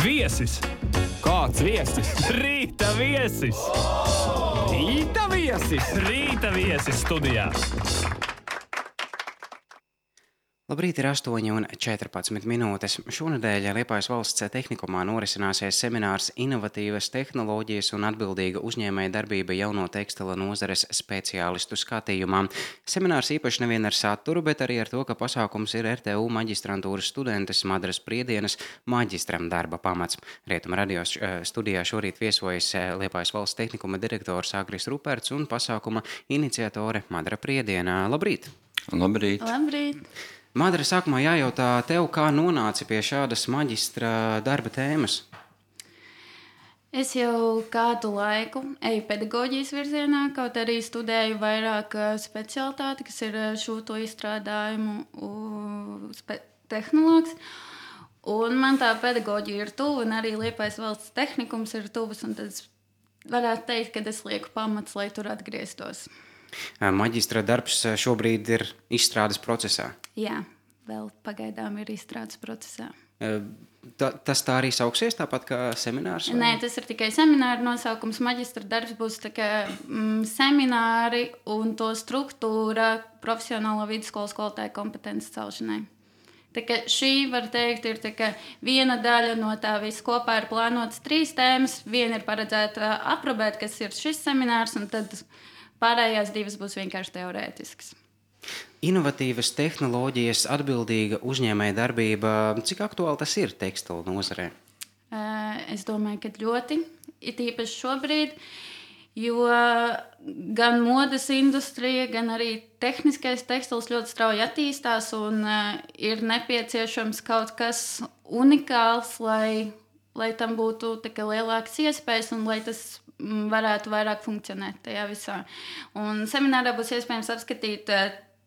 Viesis! Kāds viesis? Rīta viesis! Rīta viesis! Rīta viesis studijā! Labrīt, ir 8:14. Šonedēļ Liepājas valsts tehnikumā norisināsies seminārs Inovatīvas tehnoloģijas un atbildīga uzņēmēja darbība jauno tekstila nozares speciālistu skatījumā. Seminārs īpaši nevien ar saturu, bet arī ar to, ka pasākums ir RTU maģistrantūras studentes Madras Priedienas maģistram darba pamats. Rietuma radio studijā šorīt viesojas Liepājas valsts tehnikuma direktors Agris Ruperts un pasākuma iniciatore Madra Priediena. Labrīt! Labrīt! Labrīt! Madra, sākumā jājautā tev, kā nonāci pie šādas maģistra darba tēmas? Es jau kādu laiku eju pedagoģijas virzienā, kaut arī studēju vairāk specialitāti, kas ir šūto izstrādājumu tehnologs. Un man tā pedagoģija ir tuva, un arī Liepājas valsts tehnikums ir tuvs, un tad varētu teikt, ka es lieku pamats, lai tur atgrieztos. Maģistra darbs šobrīd ir izstrādes procesā. Jā, vēl pagaidām ir izstrādes procesā. Tas tā arī sauksies, tāpat kā seminārs? Vai? Nē, tas ir tikai semināra nosaukums. Maģistra darbs būs semināri un to struktūra profesionālo vidusskolas skolotāju kompetences celšanai. Šī, var teikt, ir viena daļa no tā visa. Kopā ir plānotas 3 tēmas. Viena ir paredzēta aprobēt, kas ir šis seminārs, un tad pārējās 2 būs vienkārši teorētiskas. Inovatīvas tehnoloģijas, atbildīga uzņēmēja darbība. Cik aktuāli tas ir tekstila nozarē? Es domāju, ka ļoti. It īpaši šobrīd, jo gan modes industrija, gan arī tehniskais tekstils ļoti strauji attīstās un ir nepieciešams kaut kas unikāls, lai tam būtu lielākas iespējas un lai tas varētu vairāk funkcionēt tajā visā. Un seminārā būs iespējams apskatīt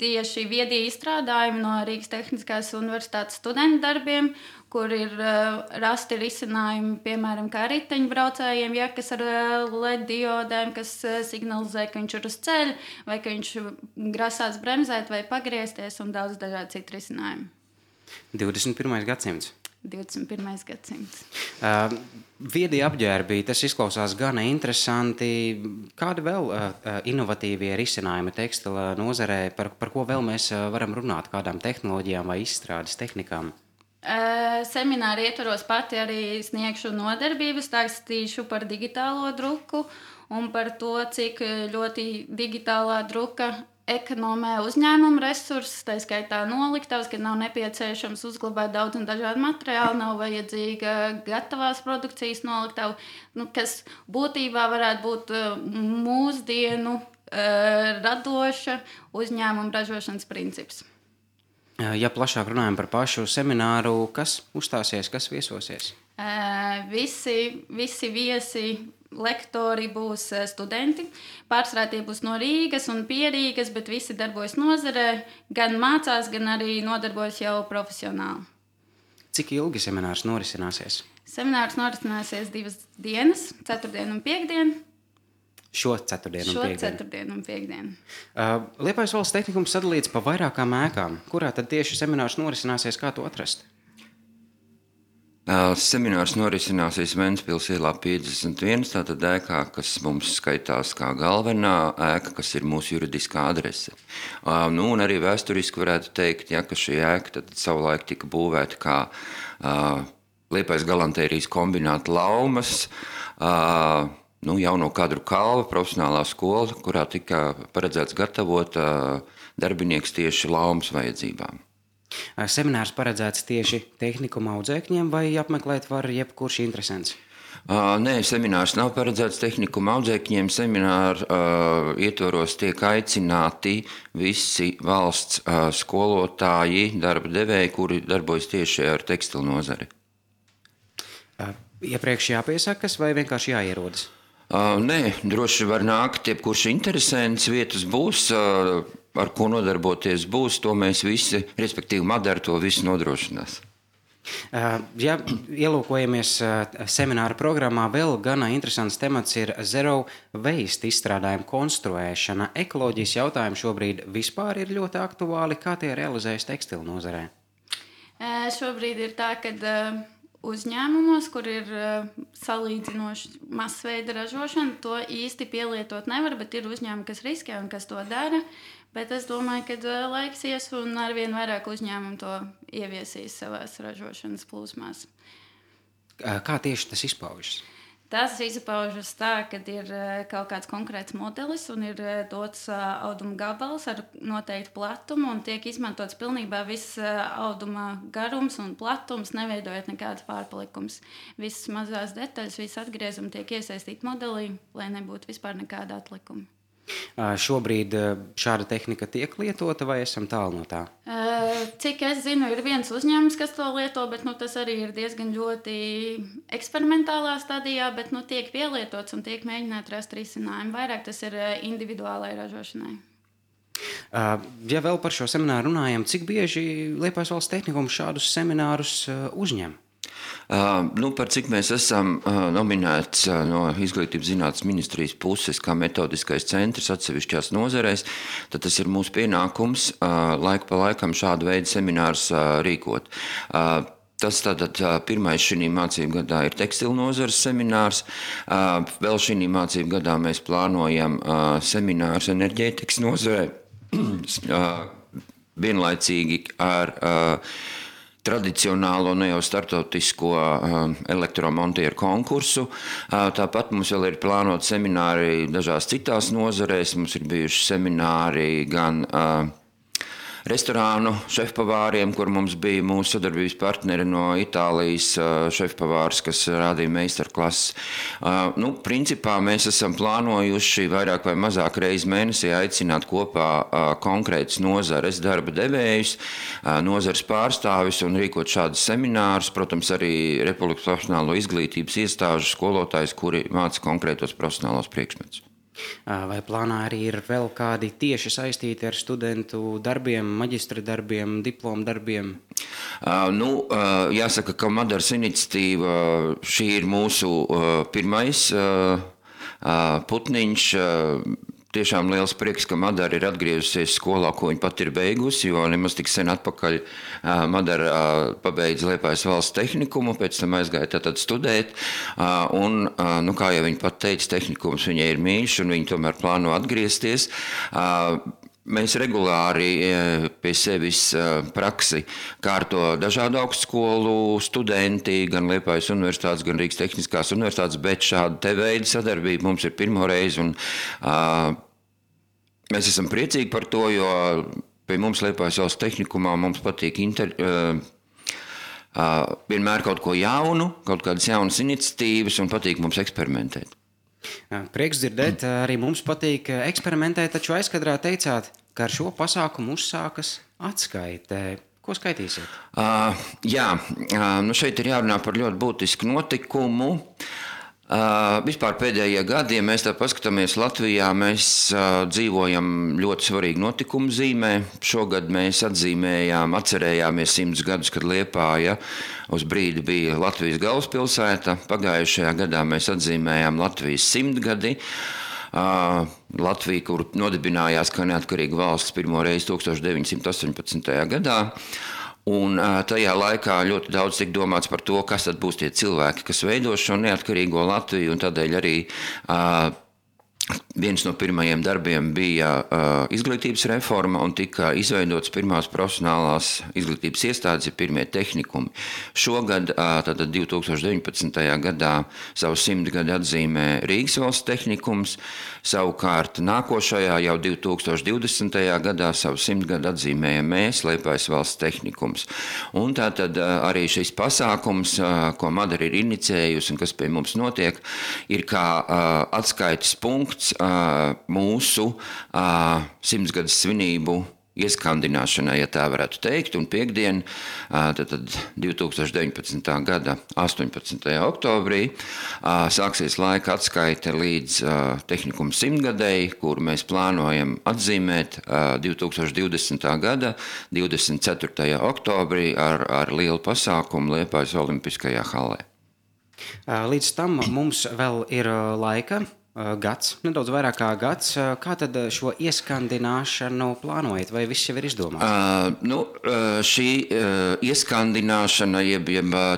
tieši viedie izstrādājumi no Rīgas Tehniskās universitātes studentu darbiem, kur ir rasti risinājumi, piemēram, kā riteņbraucējiem, kas ar LED diodēm, kas signalizē, ka viņš ir uz ceļa, vai ka viņš grasās bremzēt vai pagriezties, un daudz dažādi citi risinājumi. 21. gadsimts. 21. gadsimts. Viedie apģērbi, tas izklausās gana interesanti. Kādi vēl inovatīvie risinājumi tekstila nozarē, par ko vēl mēs varam runāt, kādām tehnoloģijām vai izstrādes tehnikām? Semināri ietvaros pati arī sniegšu nodarbības, stāstīšu par digitālo druku un par to, cik ļoti digitālā druka ekonomē uzņēmumu resursus, tā skaitā noliktavas, kad nav nepieciešams uzglabāt daudz un dažādu materiālu, nav vajadzīga gatavās produkcijas noliktava, kas būtībā varētu būt mūsdienu radoša uzņēmuma ražošanas princips. Ja plašāk runājam par pašu semināru, kas uzstāsies, kas viesosies? Visi viesi, lektori būs studenti. Pārsvarā tie būs no Rīgas un pie Rīgas, bet visi darbojas nozarē, gan mācās, gan arī nodarbojas jau profesionāli. Cik ilgi seminārs norisināsies? Seminārs norisināsies 2 dienas, 4. un 5. Šo ceturtdienu un piekdienu. Liepājas valsts tehnikums sadalīts pa vairākām ēkām. Kurā tad tieši seminārs norisināsies, kā to atrast? Seminārs norisināsies Ventspils ielā 51, tātad ēkā, kas mums skaitās kā galvenā ēka, kas ir mūsu juridiskā adrese. Un arī vēsturiski varētu teikt, ka šī ēka tad savulaik tika būvēta kā Liepājas galantērijas kombināta laumas, jauno kadru kalva, profesionālā skola, kurā tika paredzēts gatavot darbinieks tieši laumas vajadzībām. Seminārs paredzēts tieši tehnikuma audzēkņiem vai apmeklēt var jebkurš interesants? Nē, seminārs nav paredzēts tehnikuma audzēkņiem. Semināra ietvaros tiek aicināti visi valsts skolotāji, darba devēji, kuri darbojas tieši ar tekstilu nozari. Iepriekš jāpiesakas vai vienkārši jāierodas? Nē, droši var nākt, jebkurš interesants, vietas būs, ar ko nodarboties būs, to mēs visi, respektīvi Madara to visu nodrošinās. Ja ielūkojamies semināra programmā, vēl gana interesants temats ir zero waste izstrādājumu konstruēšana. Ekoloģijas jautājumi šobrīd vispār ir ļoti aktuāli. Kā tie realizējas tekstilu nozarē? Šobrīd ir tā, ka uzņēmumos, kur ir salīdzinoši masveida ražošana, to īsti pielietot nevar, bet ir uzņēmumi, kas riskē un kas to dara. Bet es domāju, ka laiks ies un arvien vairāk uzņēmumu to ieviesīs savās ražošanas plūsmās. Kā tieši tas izpaužas? Tas izpaužas tā, ka ir kaut kāds konkrēts modelis un ir dots auduma gabals ar noteiktu platumu un tiek izmantots pilnībā viss auduma garums un platums, neveidojot nekādas pārpalikums. Visas mazās detaļas, visas atgriezumi tiek iesaistīti modelī, lai nebūtu vispār nekāda atlikuma. Šobrīd šāda tehnika tiek lietota vai esam tālu no tā? Cik es zinu, ir viens uzņēmums, kas to lieto, bet tas arī ir diezgan ļoti eksperimentālā stadijā, bet tiek pielietots un tiek mēģināt rast risinājumu. Vairāk tas ir individuālai ražošanai. Ja vēl par šo semināru runājam, cik bieži Liepājas Valsts tehnikums šādus seminārus uzņem? Par cik mēs esam nominēts no Izglītības zinātnes ministrijas puses kā metodiskais centrs atsevišķās nozarēs, tad tas ir mūsu pienākums laiku pa laikam šādu veidu seminārus rīkot. Tas tātad pirmais šī mācību gadā ir tekstilu nozares seminārs. Vēl šī mācību gadā mēs plānojam seminārus enerģētikas nozarē. Vienlaicīgi ar tradicionālo, ne jau startautisko elektromontieru konkursu. Tāpat mums vēl ir plānot semināri dažās citās nozarēs. Mums ir bijuši semināri gan restorānu šefpavāriem, kur mums bija mūsu sadarbības partneri no Itālijas šefpavārs, kas rādīja meistarklases. Principā mēs esam plānojuši vairāk vai mazāk reizi mēnesī aicināt kopā konkrētas nozares darba devējus, nozares pārstāvis un rīkot šādus seminārus. Protams, arī Republikas profesionālo izglītības iestāžu skolotājus, kuri māca konkrētos profesionālos priekšmetus. Vai plānā arī ir vēl kādi tieši saistīti ar studentu darbiem, maģistra darbiem, diplomu darbiem? Jāsaka, ka Madaras iniciatīva šī ir mūsu pirmais putniņš. Tiešām liels prieks, ka Madara ir atgriezusies skolā, ko viņa pat ir beigusi, jo nemaz tik sen atpakaļ Madara pabeidza Liepājas Valsts tehnikumu, pēc tam aizgāja tātad studēt, un, kā jau viņa pat teica, tehnikums viņai ir mīļš, un viņa tomēr plāno atgriezties. Mēs regulāri pie sevis praksi kārto dažādu augstskolu studenti, gan Liepājas universitātes, gan Rīgas tehniskās universitātes, bet šāda te veida sadarbība mums ir pirmo reizi, un mēs esam priecīgi par to, jo pie mums Liepājas Valsts tehnikumā mums patīk vienmēr kaut ko jaunu, kaut kādas jaunas iniciatīvas un patīk mums eksperimentēt. Prieks dzirdēt, arī mums patīk eksperimentēt, taču aizkadrā teicāt, ka ar šo pasākumu uzsākas atskaite. Ko skaitīsiet? Šeit ir jārunā par ļoti būtisku notikumu. Vispār pēdējie gadi, ja mēs tā paskatāmies Latvijā, mēs dzīvojam ļoti svarīgu notikumu zīmē. Šogad mēs atcerējāmies 100 gadus, kad Liepāja uz brīdi bija Latvijas galvaspilsēta. Pagājušajā gadā mēs atzīmējām Latvijas 100 gadi. Latvija, kur nodibinājās kā neatkarīga valsts pirmo reizi 1918. gadā. Un tajā laikā ļoti daudz tika domāts par to, kas tad būs tie cilvēki, kas veido šo neatkarīgo Latviju, un tādēļ arī viens no pirmajiem darbiem bija izglītības reforma un tika izveidotas pirmās profesionālās izglītības iestādes, pirmie tehnikumi. Šogad, tātad 2019. gadā, savu 100 gadu atzīmē Rīgas Valsts tehnikums, savukārt nākošajā jau 2020. gadā savu 100 gadu atzīmējam mēs, Liepājas Valsts tehnikums. Un tātad arī šis pasākums, ko Madara ir inicējusi un kas pie mums notiek, ir kā atskaites punkts mūsu 100 gadus svinību ieskandināšanai, ja tā varētu teikt, un piektdien, tad 2019. gada 18. oktobrī sāksies laika atskaite līdz tehnikuma 100 gadēji, kur mēs plānojam atzīmēt 2020. gada 24. oktobrī ar lielu pasākumu Liepājas Olimpiskajā halē. Līdz tam mums vēl ir laika. gads, nedaudz vairāk kā gads. Kā tad šo ieskandināšanu plānojat, vai viss jau ir izdomāts? Šī ieskandināšana, jeb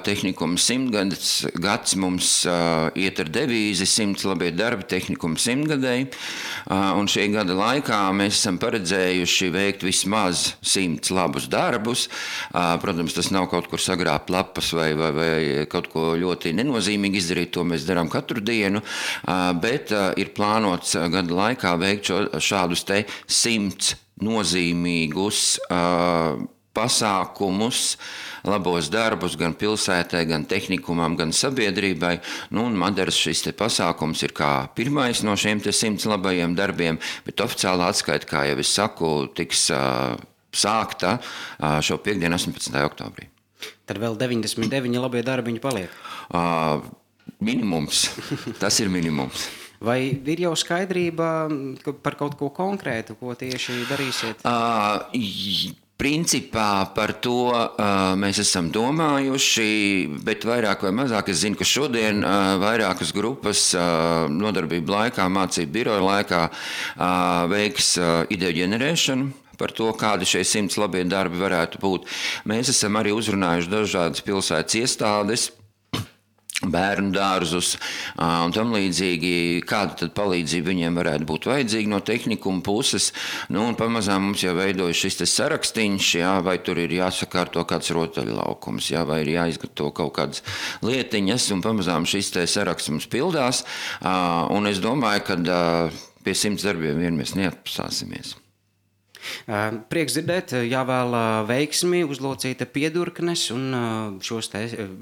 tehnikuma 100 gads mums iet ar devīzi 100 labie darbi tehnikuma 100-gadēji, un šī gada laikā mēs esam paredzējuši veikt vismaz 100 labus darbus. Protams, tas nav kaut kur sagrābt lapas vai kaut ko ļoti nenozīmīgi izdarīt, to mēs darām katru dienu, bet ir plānots gada laikā veikt šādus te 100 nozīmīgus pasākumus, labos darbus gan pilsētai, gan tehnikumam, gan sabiedrībai. Un Madaras šis te pasākums ir kā pirmais no šiem te 100 labajiem darbiem, bet oficiālā atskaita, kā jau es saku, tiks sākta šo piekdienu 18. oktobrī. Tad vēl 99 labie darbiņi paliek? Minimums. Tas ir minimums. Vai ir jau skaidrība par kaut ko konkrētu, ko tieši darīsiet? Principā par to mēs esam domājuši, bet vairāk vai mazāk es zinu, ka šodien vairākas grupas nodarbību laikā, mācību biroja laikā veiks ideju ģenerēšanu par to, kādi šie 100 labie darbi varētu būt. Mēs esam arī uzrunājuši dažādas pilsētas iestādes, bērnu dārzus un tam līdzīgi, kāda tad palīdzība viņiem varētu būt vajadzīga no tehnikuma puses. Un pamazām mums jau veidojas šis te sarakstīņš, vai tur ir jāsakārto kāds rotaļlaukums, vai ir jāizgatavo kaut kādas lietiņas, un pamazām šis te saraksts mums pildās. Un es domāju, ka pie 100 darbiem vien mēs neatpasāsimies. Prieks dzirdēt, jāvēl veiksmi, uzlocīta piedurknes un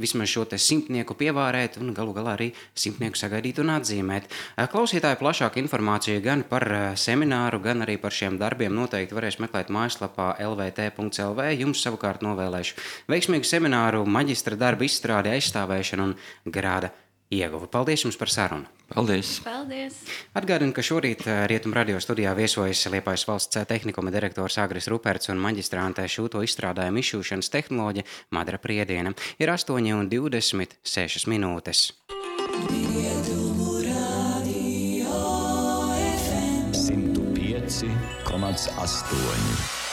vismaz šo te 100-nieku pievārēt un galu galā arī 100-nieku sagaidīt un atzīmēt. Klausītāji plašāku informāciju gan par semināru, gan arī par šiem darbiem noteikti varēs meklēt mājaslapā lvt.lv. Jums savukārt novēlēšu veiksmīgu semināru, maģistra darba izstrādi, aizstāvēšanu un grāda ieguvi. Paldies jums par sarunu! Paldies! Paldies! Atgādinu, ka šorīt Rietumu radio studijā viesojas Liepājas valsts tehnikuma direktors Agris Ruperts un maģistrāntē šūto izstrādājumu izšūšanas tehnoloģe Madara Priediena. Ir 8:26 minūtes. Rietumu radio FM 105,8